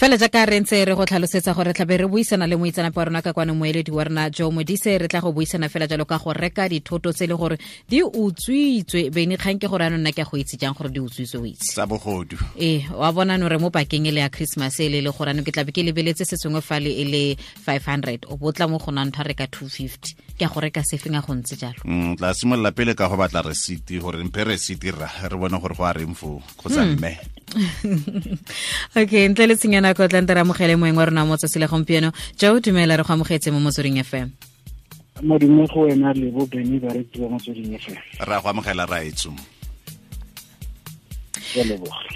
Fela jaaka re ntse re go tlhalosetsa gore tlabe re buisana le moitseanape wa rona ka kwano, moeledi wa rona Joe Modise. Re tla go buisana fela jalo ka go reka dithoto tse e le gore di utswitswe. Bene, kgang ke gore anong nna ke a go itse jang gore di utswitswe, o itse? Tsa bogodu. Ee, wa bona no re mo pakeng e le ya Christmas e le le gore anong ke tlabe ke lebeletse se sengwe fale e le 500, o botla mo go nna ntho a reka 250. Ke a go reka sefeng a go ntse jalo? Tla simolola pele ka go batla receipt, gore mphe receipt rra, re bone gore go a reng foo kgotsa mme. Okay, ntle le tshenyana nako, tla nte re amogele moeng wa rona mo tsatsi la gompieno. Joe, dumela, re go amogetse mo Motsweding FM. Modimo go wena le bo Beny, baretsi ba Motsweding FM. Ra go amogela, raetso. Ke a leboga.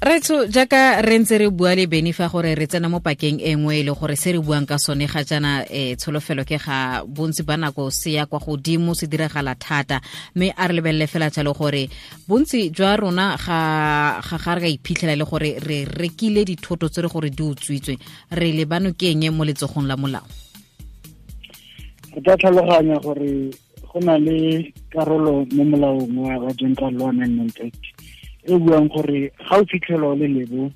Retso, jaaka re ntse re bua le Beny fa gore re tsena mo pakeng e nngwe e le gore se re buang ka sone ga jaana, tsholofelo ke ga bontsi ba nako se ya kwa godimo, se diragala thata. Mme a re lebelele fela jalo gore bontsi jwa rona ga re ka iphitlhela le gore re rekile dithoto tse re gore di utswitswe, re lebano ke eng mo letsogong la molao? Re tla tlhaloganya gore go na le karolo mo molaong wa General Law Amendment Act e buang gore ga o fitlhelwa o le lebo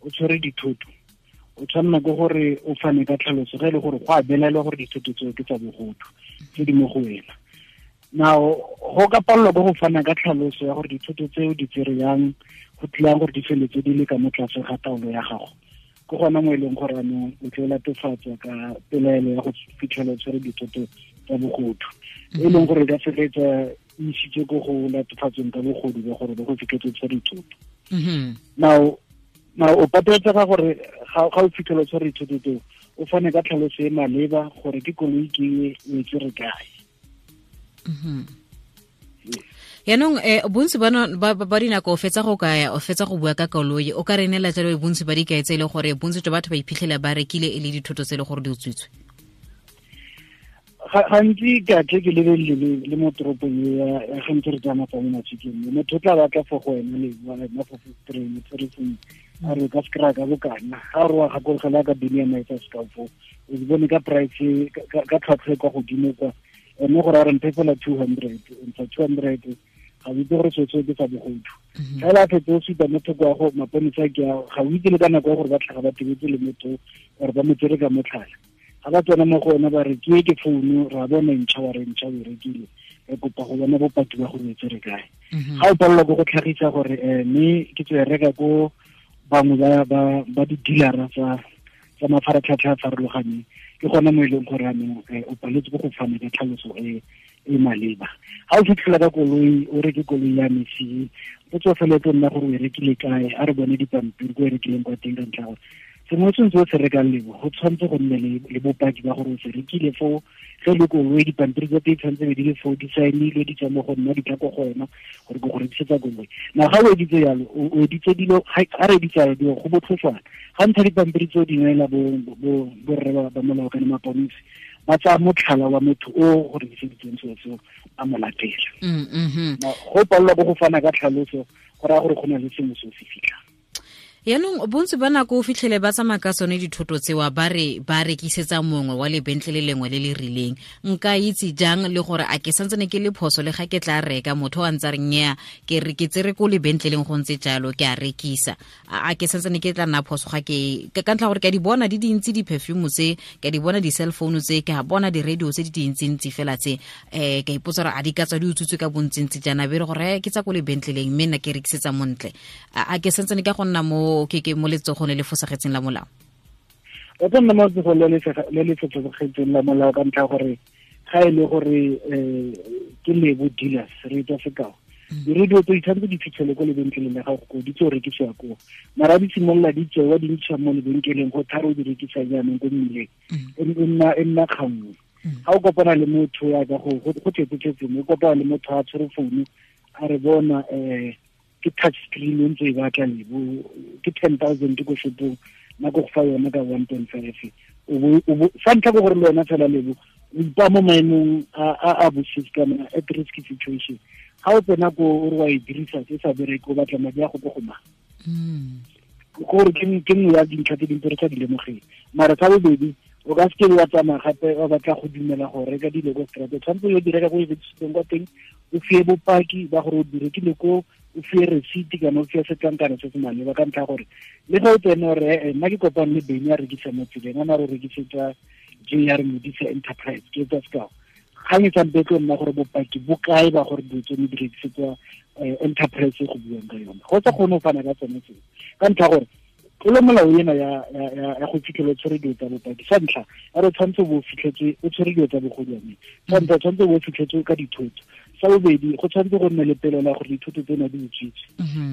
o tshwere dithoto, o tshwanela ke gore o fane ka tlhaloso ge e le gore go a belaelwa gore dithoto tseo ke tsa bogodu tse di mo go wena. Now, go ka palelwa ke go fana ka tlhaloso ya gore dithoto tseo di tsere yang, go tlilang gore di feletse di le ka mo tlase ga taolo ya gago, ke gona mo e leng gore anong o tlo latofatswa ka pelaelo ya go fitlhela o tshwere dithoto tsa bogodu, e leng gore e ka feleletsa e isitse ko go latofatsweng ka bogodu ba gore ba go fitlhetse tshwere dithoto. Now o pateletsega gore ga o fitlhela o tshwere dithoto tseo, o fane ka tlhaloso e maleba gore ke koloi ke e, o e tsere kae. Yaanong bontsi ba dinako o fetsa go kaya, o fetsa go bua ka koloi, o ka re neela jalo bontsi ba dikai tse e le gore bontsi jwa batho ba iphitlhela ba rekile e le dithoto tse e le gore di utswitswe? Gantsi ka tle ke lebelele le mo toropong e ya gantsi re tsamaya tsa mo mafikeng, motho o tla batla fo go wena le wena fo train tshwere sengwe, a re ka se kry-a ka bokana. Ga re wa gakologela ka bini ya maetsa sekao foo, o di bone ka price, ka tlhwatlhwa e kwa godimo kwa ene, gore a re mphe fela 200, ntsha 200, ga o itse gore seo ke sa bogodu. Fela a fetse o supa mo thoko ya go maponisa ke a ga o itse le ka nako ya gore ba tlhaga ba tebetse le motho gore ba mo tsere ka motlhala. Ga ba tsena mo go ona ba re ke e ke founu, ra bona ntšha, wa re ntšha o e rekile, re kopa go bona bopaki ba gore o e tsere kae. Ga o palelwa ke go tlhagisa gore mme ke tswe reka ko bangwe ba di-dealera tsa mafaratlhatlha a farologaneng, ke gona mo e leng gore anong o paletse ke go fana ka tlhaloso e e maleba. Ga o fitlhela ka koloi, o reke koloi ya mesi, o tswa fela e tlo nna gore o e rekile kae, a re bone dipampiri ko e rekileng kwa teng, ka ntlha gore sengwe se ntse o se rekang lebo go tshwanetse go nne le bopaki ba gore o se rekile foo. Ge le koloi, dipampiri tsa teng tshwanetse be di le foo, di saenilwe, di tswa mo go nna, di tla ko go wena gore ke go rekisetsa koloi. Na ga o editse yalo, o editse dilo, ga re editse yalo dilo go botlhoswana. Ga ntsha dipampiri tseo di neela borre ba molao kana maponisi, ba tsaya motlhala wa motho o go rekiseditseng selo seo, a mo latela. Go palelwa ke go fana ka tlhaloso go raya gore go na le sengwe se o se fitlhang. Yaanong bontsi ba nako o fitlhele ba tsamaya ka tsone dithoto tsewa, ba re ba rekisetsa mongwe wa lebentle le lengwe le le rileng. Nka itse jang le gore a ke santsene ke le phoso le ga ke tla reka, motho a ntse a re nnyaa, ke re ke tsere ko lebentleleng, go ntse jalo, ke a rekisa, a ke santsene ke tla nna phoso ga ke ka ntlha gore ke a di bona di dintsi di-perfume tse, ke a di bona di-cell phone tse, ke a bona di-radio tse di dintsintsi fela tse, ka ipotsa gore a di ka tswa di utswitswe ka bontsintsi jaana, be re gore ke tsa ko lebentleleng mme nna ke rekisetsa montle, a ke santsene ka go nna mo ke mo letsogong le le fosagetseng la molao? O tla nna mo letsogong le le fosagetseng la molao ka ntlha gore ga e le gore ke Lebo Dealers, re etsa sekao, di-radio tse di tshwanetse di fitlhele ko lebenkeleng la gago ko di tlo rekisiwa koo, mara di simolola di tsewa di ntšha mo lebenkeleng go tharo di rekisa jaanong ko mmileng, e nna kgangwe. Ga o kopana le motho ya ka go tletse-tletse mo, o kopana le motho a tshwere founu, a re bona ke touch screen e ntse e batla lebo, ke 10,000 ko shopong, nna ko go fa yona ka 1.5. Sa ntlha ke gore le wena fela lebo o ipaa mo maemong a bosisi kana at risk situation. Ga o tsena ko o re wa e dirisa, se sa bereke, o batla madi a go ko go mang? Gore ke nngwe ya dintlha tse dintse re sa di lemogeng. Mara sa bobedi, o ka seke wa tsamaya gape wa batla go dumela go reka dilo ko strate. Tshwanetse o yo di reka ko e rekisitseng kwa teng, o fie bopaki ba gore o di rekile ko. O fiwe receipt kana o fiwe setlankana se se maleba, ka ntlha gore le ga o tsene gore nna ke kopane le Beny a rekisa mo tseleng, a na re rekisetsa JR Modise Enterprise, ke etsa sekao. Kgang e sampe tlo nna gore bopaki bo kae ba gore dilo tsone di rekisetswa enterprise e go buang ka yone. Go sa kgone go fana ka tsone tseo, ka ntlha gore tlolo molao ena ya go fitlhela o tshwere dilo tsa bopaki. Sa ntlha, a re tshwanetse o bo fitlhetse o tshwere dilo tsa bogodwane. Sa ntlha, tshwanetse o bo fitlhetse ka dithoto. Sa bobedi, go tshwanetse go nne le pelo la gore dithoto tsena di utswitswe.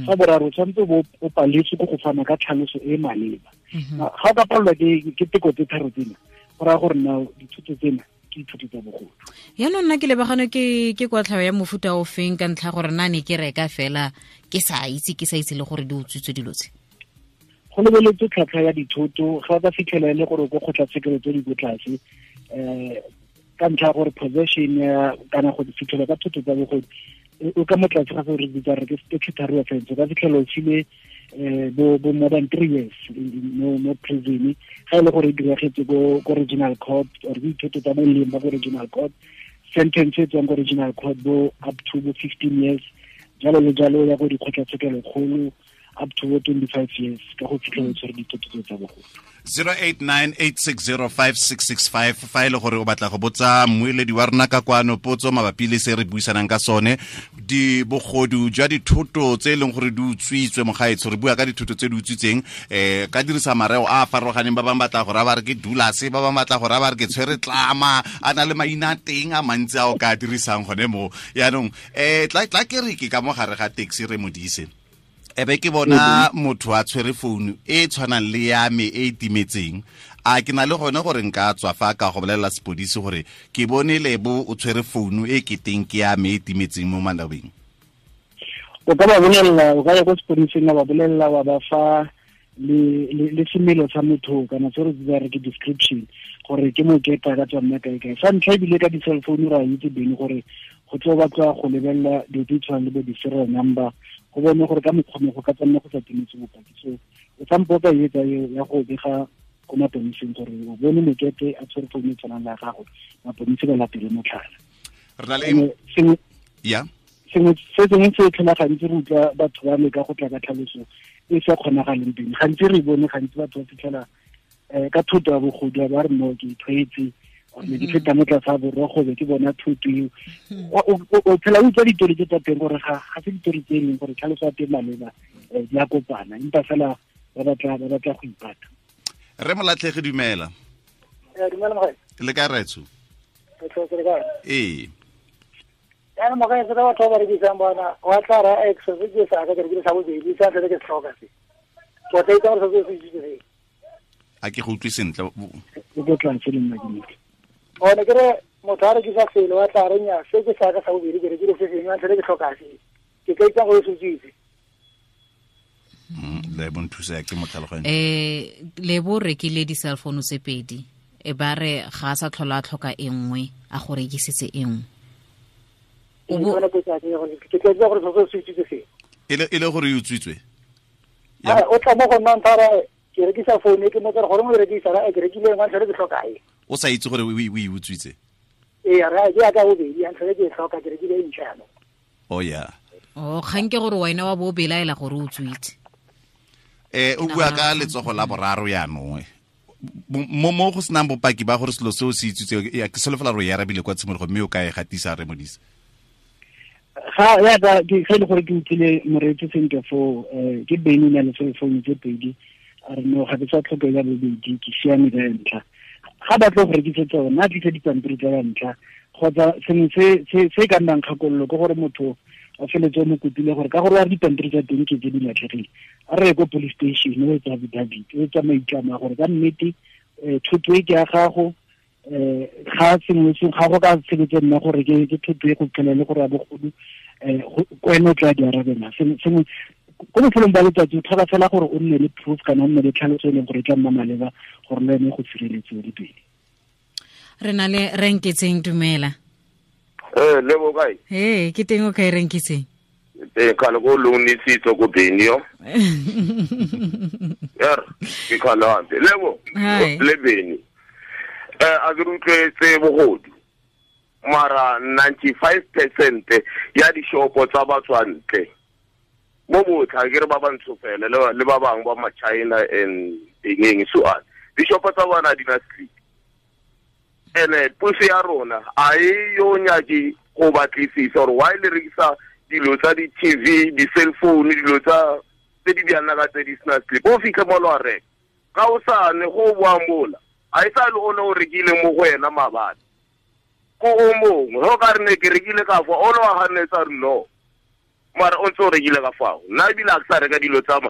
Sa boraro, tshwanetse o paletswe ke go fana ka tlhaloso e maleba. Ga o ka palelwa ke teko tse tharo tsena, go raya gore na dithoto tsena ke dithoto tsa bogodu. Yaanong nna ke lebagane ke kwatlhao ya mofuta o feng, ka ntlha gore nna ne ke reka fela ke sa itse le gore di utswitswe dilo tse? Go lebeletswe tlhwatlhwa ya dithoto, ga o ka fitlhela e le gore ko kgotlatshekelo tse di ko tlase, ka ntlha ya gore possession ya kana go fitlhela ka thoto tsa bogodu o ka mo tlase ga gore bitsa re ke statutory offense, o ka fitlhela o file bo more than 3 years mo prison, ga e le gore e diragetse ko regional court or dithoto tsa boleng ba ko regional court, sentence e tswang ko regional court bo up to bo 15 years, jalo le jalo ya go dikgotlatshekelo kgolo up to 25 years ka go fitlhela tshwere dithoto tsa bogodu. 0898605665 fa e le gore o batla go botsa mmueledi wa rona ka kwano potso mabapi le se re buisanang ka sone, di bogodu jwa dithoto tse e leng gore di utswitswe mogaetsho. Re bua ka dithoto tse di utswitseng, ka dirisa mareo a a farologaneng. Ba bangwe batla go raya ba re ke dulase, ba bangwe batla go raya ba re ke tshwere tlama, a na le maina a teng a mantsi a o ka dirisang gone mo. Yaanong tla ke re ke ka mo gare ga taxi re Modise, ebe ke bona motho a tshwere founu e tshwanang le ya me e timetseng, a ke na le gone gore nka tswa fa ka go bolelela sepodisi gore ke bone Lebo o tshwere founu e keteng ke ya me e timetseng mo malobeng? O ka ba bolelela, o ka ya ko sepodising wa ba bolelela, wa ba fa le semelo sa motho kana se re bitsang re ke description, gore ke moketa ka tswa nna kae kae. Sa ntlha ebile ka di-cell phone ra itse bene gore go tlo batla go lebelela dilo tse tshwanang le bo di-serial number, go bone gore ka mokgwa go ka tsanna go sa timetse bopaki. So o sampo ka etsa ya go bega ko maponiseng gore o bone mokete a tshwere founu e tshwanang le ya gago, maponisi ba latele motlhala. Re na le ya sengwe se sengwe se tlhola gantsi re utlwa batho ba leka go tla ka tlhaloso e sa kgonagaleng teng. Gantsi re bone gantsi batho ba fitlhela ka thoto ya bogodu ba re no ke ithwetse, ne ke feta mo tlase ga borogo be ke bona thoto eo. O phela o utlwa ditori tse tsa teng gore ga se ditori tse e leng gore tlhaloso ya teng maleba, di a kopana, empa fela ba batla go ipata. Re Molatlhegi, dumela. Dumela mogae. Le kae raetsho? Ee. Jaanong mogae, se ka batho ba ba rekisang bona, wa tla ra ex se ke sa ka ke rekile sa bobedi, sa ntlha ke se tlhoka se. Ke tla itse gore se se itse se. A ke go utlwe sentle. O go tla ntse le nna ke nnete. One ke re motho a rekisa selo wa tla re nya se ke sa ka sa bobedi ke rekile se sengwe, ntlha ke tlhoka se. Ke ka itse gore se itse. Lebo nthusa ke mo tlhaloganya. Lebo rekile di-cell phone tse pedi, e ba re ga a sa tlhola a tlhoka e nngwe, a go rekisitse e nngwe. Ke tla itse gore se se itse se. E le gore e utswitswe? O tla mo go nna ntha re ke rekisa phone ke mo tsere gore mo rekisa ra ke rekile ngwa ntlha ke tlhoka e. O sa itse gore o e utswitse? Ee, ra ke ya ka bobedi, ntlha ke tlhoka ke rekile e ntšha jaanong. Oh yeah. Oh, kgang ke gore wena wa bo belaela gore o utswitse. O bua ka letsogo la boraro yaanong. Mo go senang bopaki ba gore selo seo se utswitse, ke solofela gore e arabile kwa tshimologo mme o ka e gatisa re Modise. Ga ya ka ke ge le gore ke utlwile moreetsi sentle foo, ke Beny na le cell phone tse pedi, a re no ga ke sa tlhoke ya bobedi, ke siame ka ya ntlha. Ga ba tlo go rekisetsa yona, a tlise dipampiri tsa ya ntlha, kgotsa sengwe se ka nnang kgakololo ke gore motho a feletse o mo kopile gore ka gore wa dipampiri tsa teng ke tse di latlhegile, a re ye ko police station o etsa affidavit, o etsa maitlamo a gore ka nnete thoto e ke ya gago, ga sengwe se ga go ka sebetse nna gore ke thoto e go tlhela le gore ya bogodu, ko ene o tla di arabela. Sengwe ko bofelong ba letsatsi o tlhoka fela gore o nne le proof kana o nne le tlhaloso e leng gore e tla nna maleba gore le ene go sireletse le pele. Re na le Renketseng, dumela. Lebo kae? Ee, ke teng o kae Renketseng? Teng khale ko lungisitse ko Benio. Er, ke khale hampe. Lebo, le Beni. A ke utlwetse bogodu. Mara 95% ya dishopo tsa batswantle Mo botlha ke re ba bantsho fela le ba bangwe ba ma-China and eng so on. Dishopo tsa bona di na slip. Ene puso ya rona a e yo nyake go batlisisa gore why le rekisa dilo tsa di-TV, di-cell phone, dilo tsa tse di bjana ka tse di sena slip. O fitlhe mo lo a reka. Ga o sane go boa mola. A e sa le o ne o rekile mo go wena maabane. Ko o mongwe, go ka re ne ke rekile ka fa, o le wa ganetsa re no. Mara o ntse o rekile ka fao. Nna ebile a ke sa reka dilo tsa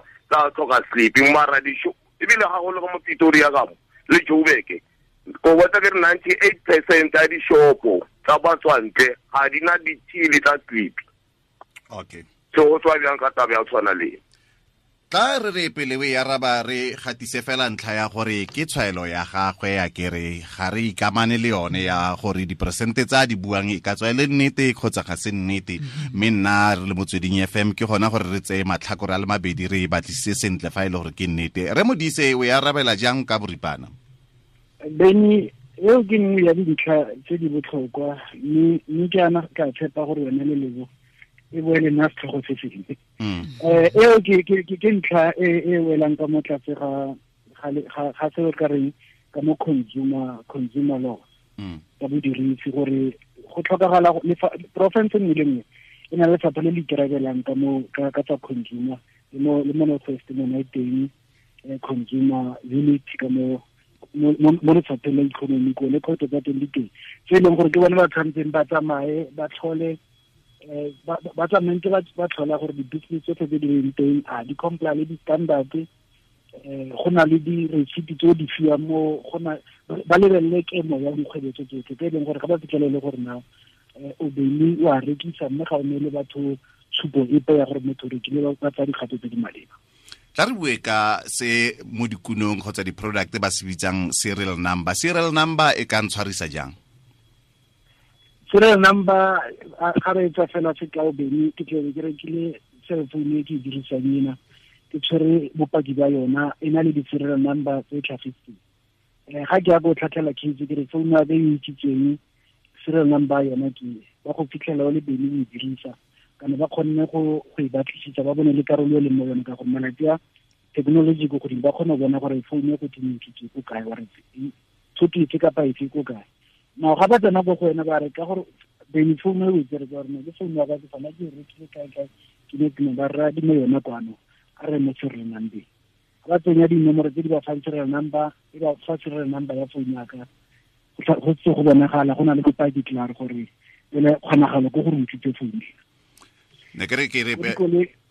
tlhoka slip, mara ebile ga go le ka mo Pretoria ka mo, le Joburg. Ko botsa ke re 98% ya dishopo tsa batswantle ga di na ditshili tsa slip. Okay. So go tswa bjang ka taba ya tshwana le. Tla re re pele we ya raba re gatise fela ntlha ya gore ke tshwaelo ya gagwe ya kere ga re ikamane le yone ya gore diperesente tsa di buang e ka tswa e le nnete kgotsa ga se nnete. Mme nna re le Motsweding FM ke gona gore re tseye matlhakore a le mabedi re e batlisise sentle fa e le gore ke nnete. Re Modise o ya arabela jang ka boripana? Beni, eo ke nngwe ya dintlha tse di botlhokwa mme ke ana ka tshepa gore yone le lebo e boele nna setlhogo se sengwe. Eo ke ntlha e welang ka mo tlase ga se re ka reng ka mo consumer law ka bodirisi gore go tlhokagala province nngwe le nngwe e na le lefapha le le ikarabelang ka mo ka tsa consumer le mo North West mo e teng consumer unit ka mo mo lefapheng la economy ko le kgotsa tsa teng di teng tse e leng gore ke bone ba tshwanetseng ba tsamaye ba tlhole ba tsamaye ba tlhola gore di-business tsotlhe tse di leng teng a di comply le di-standard, go na le di-receipt tse di fiwang mo go na ba lebelele kemo ya dikgwebo tse tsotlhe tse e leng gore ga ba fitlhelele gore na o beile o a rekisa mme ga o neele batho tshupo epe ya gore motho o rekile ba tsaya dikgato tse di maleba. Tla re bue ka se mo dikunong kgotsa di-product ba se bitsang serial number. Serial number e ka ntshwarisa jang? Serial number ga re etsa fela sekao bene ke tlebe ke rekile cell phone e ke e dirisang ena ke tshwere bopaki ba yona e na le di-serial number tse tlhagetseng. Ga ke ya go tlhatlhela case ke re phone ya ka e utswitsweng serial number yona ke ba go fitlhela o le bene o e dirisa kana ba kgonne go e batlisisa ba bone le karolo e leng mo yone ka gore malatsi a technology ko godimo ba kgone go bona gore phone e go teng ke ko kae wa re thoto efe kapa efe ko kae. Now ga ba tsena ko go wena ba re ka gore bene phone e o e tsere ka gore ke phone ya ka ke fana ke e rekile kae kae ke ne ke ba rra di mo yona kwano a re mo serial number. Ga ba tsenya dinomoro tse di ba fang serial number e ba fa serial number ya phone ya ka go tse go bonagala go na le bopaki klaar gore ele kgonagalo ko gore o utswitse phone. Ne ke re ke re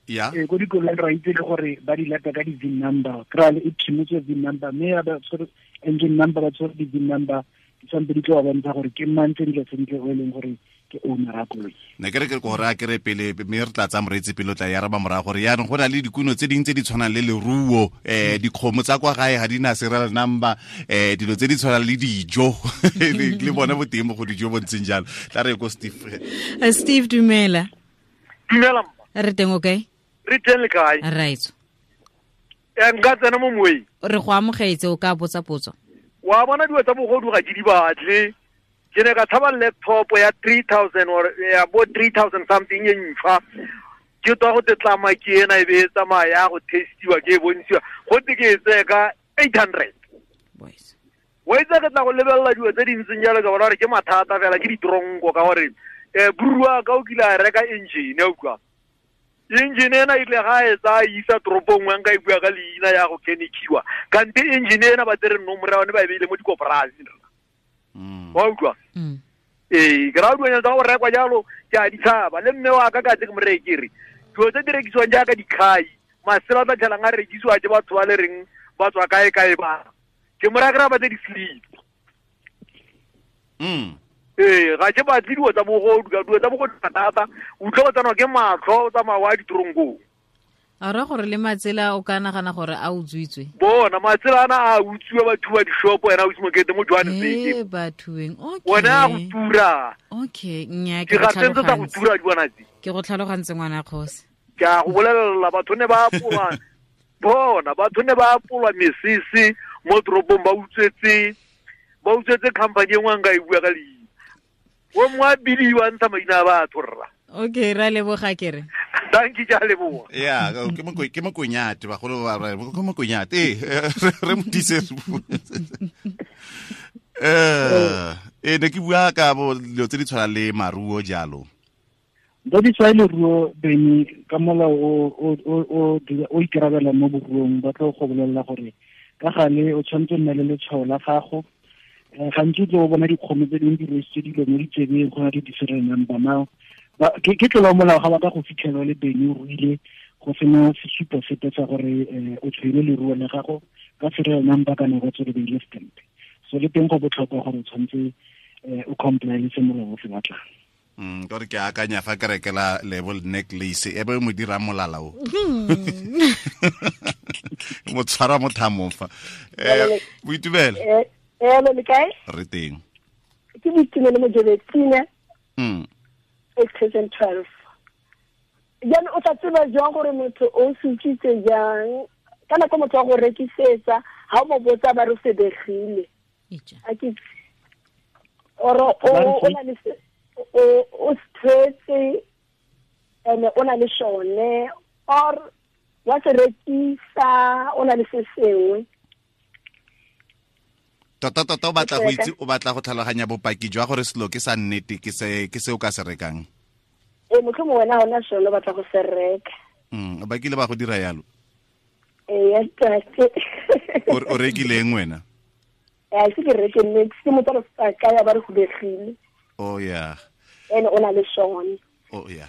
ya ko dikolong ra itse le gore ba di lata ka di-VIN number kry e phimotswe VIN number mme ya ba tshwere engine number ba tshwere di-VIN number di tshwanetse di tlo ba bontsha gore ke mang sentle sentle o e leng gore ke owner ya koloi. Ne ke re ke gore a kere pele mme re tla tsaya moreetsi pele o tla ya araba morago gore yaanong go na le dikuno tse dingwe tse di tshwanang le leruo, dikgomo tsa kwa gae ga di na serial number, dilo tse di tshwanang le dijo le bone boteng mo go dijo bo ntseng jalo. Tla re ko Steve. Steve dumela. Dumela mma. Re teng o kae? Re teng le kae? Right. Nka tsena mo moeng. Re go amogetse o ka botsa potso. Wa bona dilo tsa bogodu ga ke di batle. Ke ne ka tshaba laptop ya 3000 or ya bo 3000 something e ntšhwa. Ke tswa go tetlama ke ena e be e tsamaya go testiwa ke e bontshiwa. Go te ke e tseye ka 800. Boys. Wa itse ke tla go lebelela dilo tse di ntseng jalo ka bona gore ke mathata fela ke ditronko ka gore burua ka o kile a reka engine ya utlwa. Engine ena ile ga e tsaya isa toropong nngwe nka e bua ka leina ya go kenekiwa. Kante engine ena ba tsere nomoro ya yone ba e beile mo dikoporasing. Wa utlwa? Ee, ke raya dilonyana tsa go rekwa jalo ke a di tshaba. Le mme wa ka ka tse ke mo reye ke re dilo tse di rekisiwang jaaka dikhai, masela a tla tlhelang a rekisiwa ke batho ba le reng ba tswa kae kae ba. Ke mo raya ke raya ba tse di-slip. Ee, ga ke batle dilo tsa bogodu, ka dilo tsa bogodu thata, o utlwa o tsanwa ke matlho, o tsamaya wa ditoronkong. A ra gore le matsela o ka nagana gore a utswitswe. Bona matsela ana a utswiwa batho ba dishopo ena o Mokete mo Johannesburg. Bathueng. Okay. Bona go tura. Okay, nya ke go tlhalogantse. Go tura di bona tse. Ke go tlhalogantse ngwana kgosi. Ke a go bolelela batho ne ba apolwa. Bona batho ne ba apolwa mesese mo toropong ba utswetse company e nngwe nka e bua ka leina. O mongwe a bidiwa ntsha maina a batho rra. Okay, ra leboga ke re. Dankie, ke a leboga. Ya, ke mokonyate bagolo ba re ke mokonyate. Re Modise. Ne ke bua ka bo dilo tse di tshwana le maruo jalo. Tse di tshwana le leruo bene ka molao o ikarabela mo boruong, ba tlo go bolelela gore ka gale o tshwanetse nna le letshwao la gago. Gantsi o tlo bona dikgomo tse dingwe di rwesitse dilo mo ditsebeng, go na le di-serial number now. Ke tlola molao ga ba ka go fitlhela le bene o ruile go sena sesupo sepe sa gore o tshwere leruo la gago ka serial number kana go tswele beile stamp. So le teng go botlhokwa gore o tshwanetse o comply le se molao o se batlang. Ka gore ke akanya fa ke rekela label necklace e be mo dira molala o. Mo tshwara mo thamong fa. Boitumelo. Le kae? Re teng. Ke Boitumelo mo Jobetsine. 2012. Jaanong o tla tseba jang gore motho o se utswitse jang? Ka nako motho wa go rekisetsa, ha o mo botsa ba re o sebegile. A ke or o na le o stretse ene o na le shone or wa se rekisa o na le se sengwe. Tota tota o batla go itse, o batla go tlhaloganya bopaki jwa gore selo ke sa nnete, ke se o ka se rekang. Motlhomongwe wena ona sone o batla go se reka. Ba kile ba go dira yalo? Ya tate. O rekileng wena? Se ke reke nne, ke motho a ka ya ba re hubegile. Oh yeah. Ene o na le sone. Oh yeah.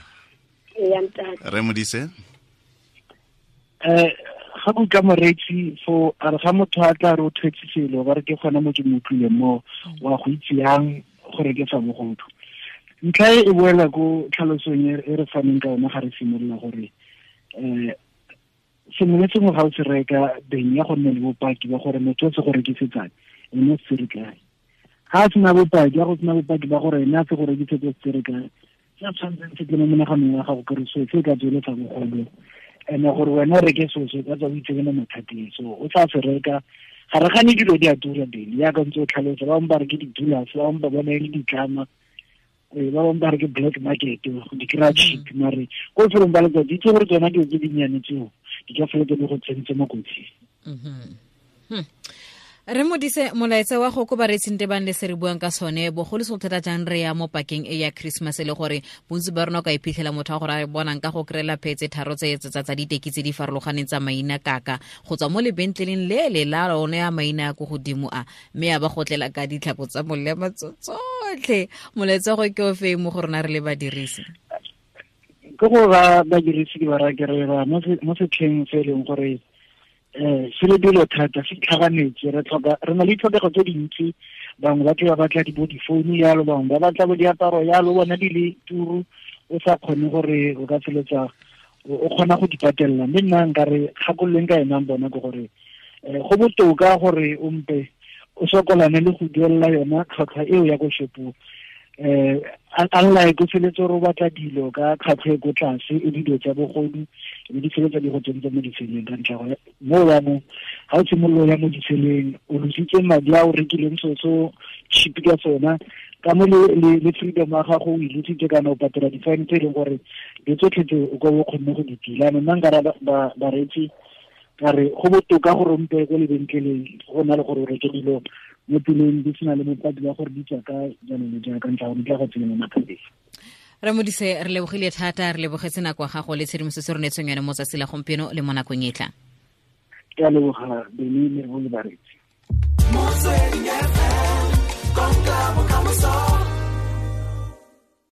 Ya ntate. Re Modise? Ga go ka moreetsi fo a re ga motho a tla re o thwetse selo ba re ke gona mo ke mo utlwileng mo wa go itse yang gore ke sa bogodu. Ntlha e boela ko tlhalosong e re faneng ka yona ga re simolola gore sengwe le sengwe ga o se reka beng ya go nne le bopaki ba gore motho o se go rekisetsang ene o se re kae. Ga a sena bopaki, ya go sena bopaki ba gore ene a se go rekisetse o se re kae, se a tshwanetseng se tle mo monaganong wa gago kere so se ka tsweletsa bogodu. Ene gore wena o reke seo se ka tswa o itsebe mo mathateng, so o tla se reka. Ga re gane dilo di a tura bele yaka ntse o tlhalosa, ba bangwe ba re ke di-dollars, ba bangwe ba bona e le ditlama, ba bangwe ba re ke black market, di kry-a cheap, mare ko lefelong ba letsatsi itse gore tsona dilo tse dinnyane tseo di ka feletse di go tsentse mo kotsing. Re Modise, molaetsa wa go ko bareetsing tebang le se re buang ka sone bogolo se thata jang re ya mo pakeng e ya Christmas le gore bontsi ba rona o ka iphitlhela motho wa gore a bonang ka go kry-ela phetse tharo tse tsa diteki tse di farologaneng tsa maina kaka go tswa mo lebentleleng le le la one ya maina a ko godimo a mme a ba go tlela ka ditlhako tsa molema tsotlhe. Molaetsa go ke o fe mo go rona re le badirisi? Ke go ba badirisi ke ba raya ke re ba mo setlheng se e leng gore se le dilo thata se tlhaganetse, re tlhoka re na le ditlhokego tse dintsi. Bangwe ba tle ba batla di bo difounu yalo, bangwe ba batla bo diaparo yalo, bona di le turu o sa kgone gore o ka feletsa o kgona go di patelela. Mme nna nka re kgakololeng ka enang bona ke gore go botoka gore o mpe o sokolane le go duelela yona tlhwatlhwa eo ya ko shopong. Unlike o feletse gore o batla dilo ka tlhwatlhwa e ko tlase e dilo tsa bogodu e di feletsa di go tsentse mo ditseleng ka ntlha gore mo jaanong ga o simolola ya mo ditseleng o lositse madi a o rekileng seo so cheap ka sona ka mo le freedom ya gago o e lositse kana o patela di-fine tse e leng gore di tsotlhe tse o ka o kgonne go di tila. Nna nka ra bareetsi ka re go botoka gore o mpe ko lebenkeleng go na le gore o reke dilo mo tseleng di sena le bopaki ba gore di tswa ka jalo le jalo ka ntlha gore di tla go tsenya mo mathateng. Re Modise, re lebogile thata, re lebogetse nako ya gago le tshedimosetso re neetseng yone mo tsatsi la gompieno le mo nakong e tlang. Ke a leboga bene le bo le bareetsi.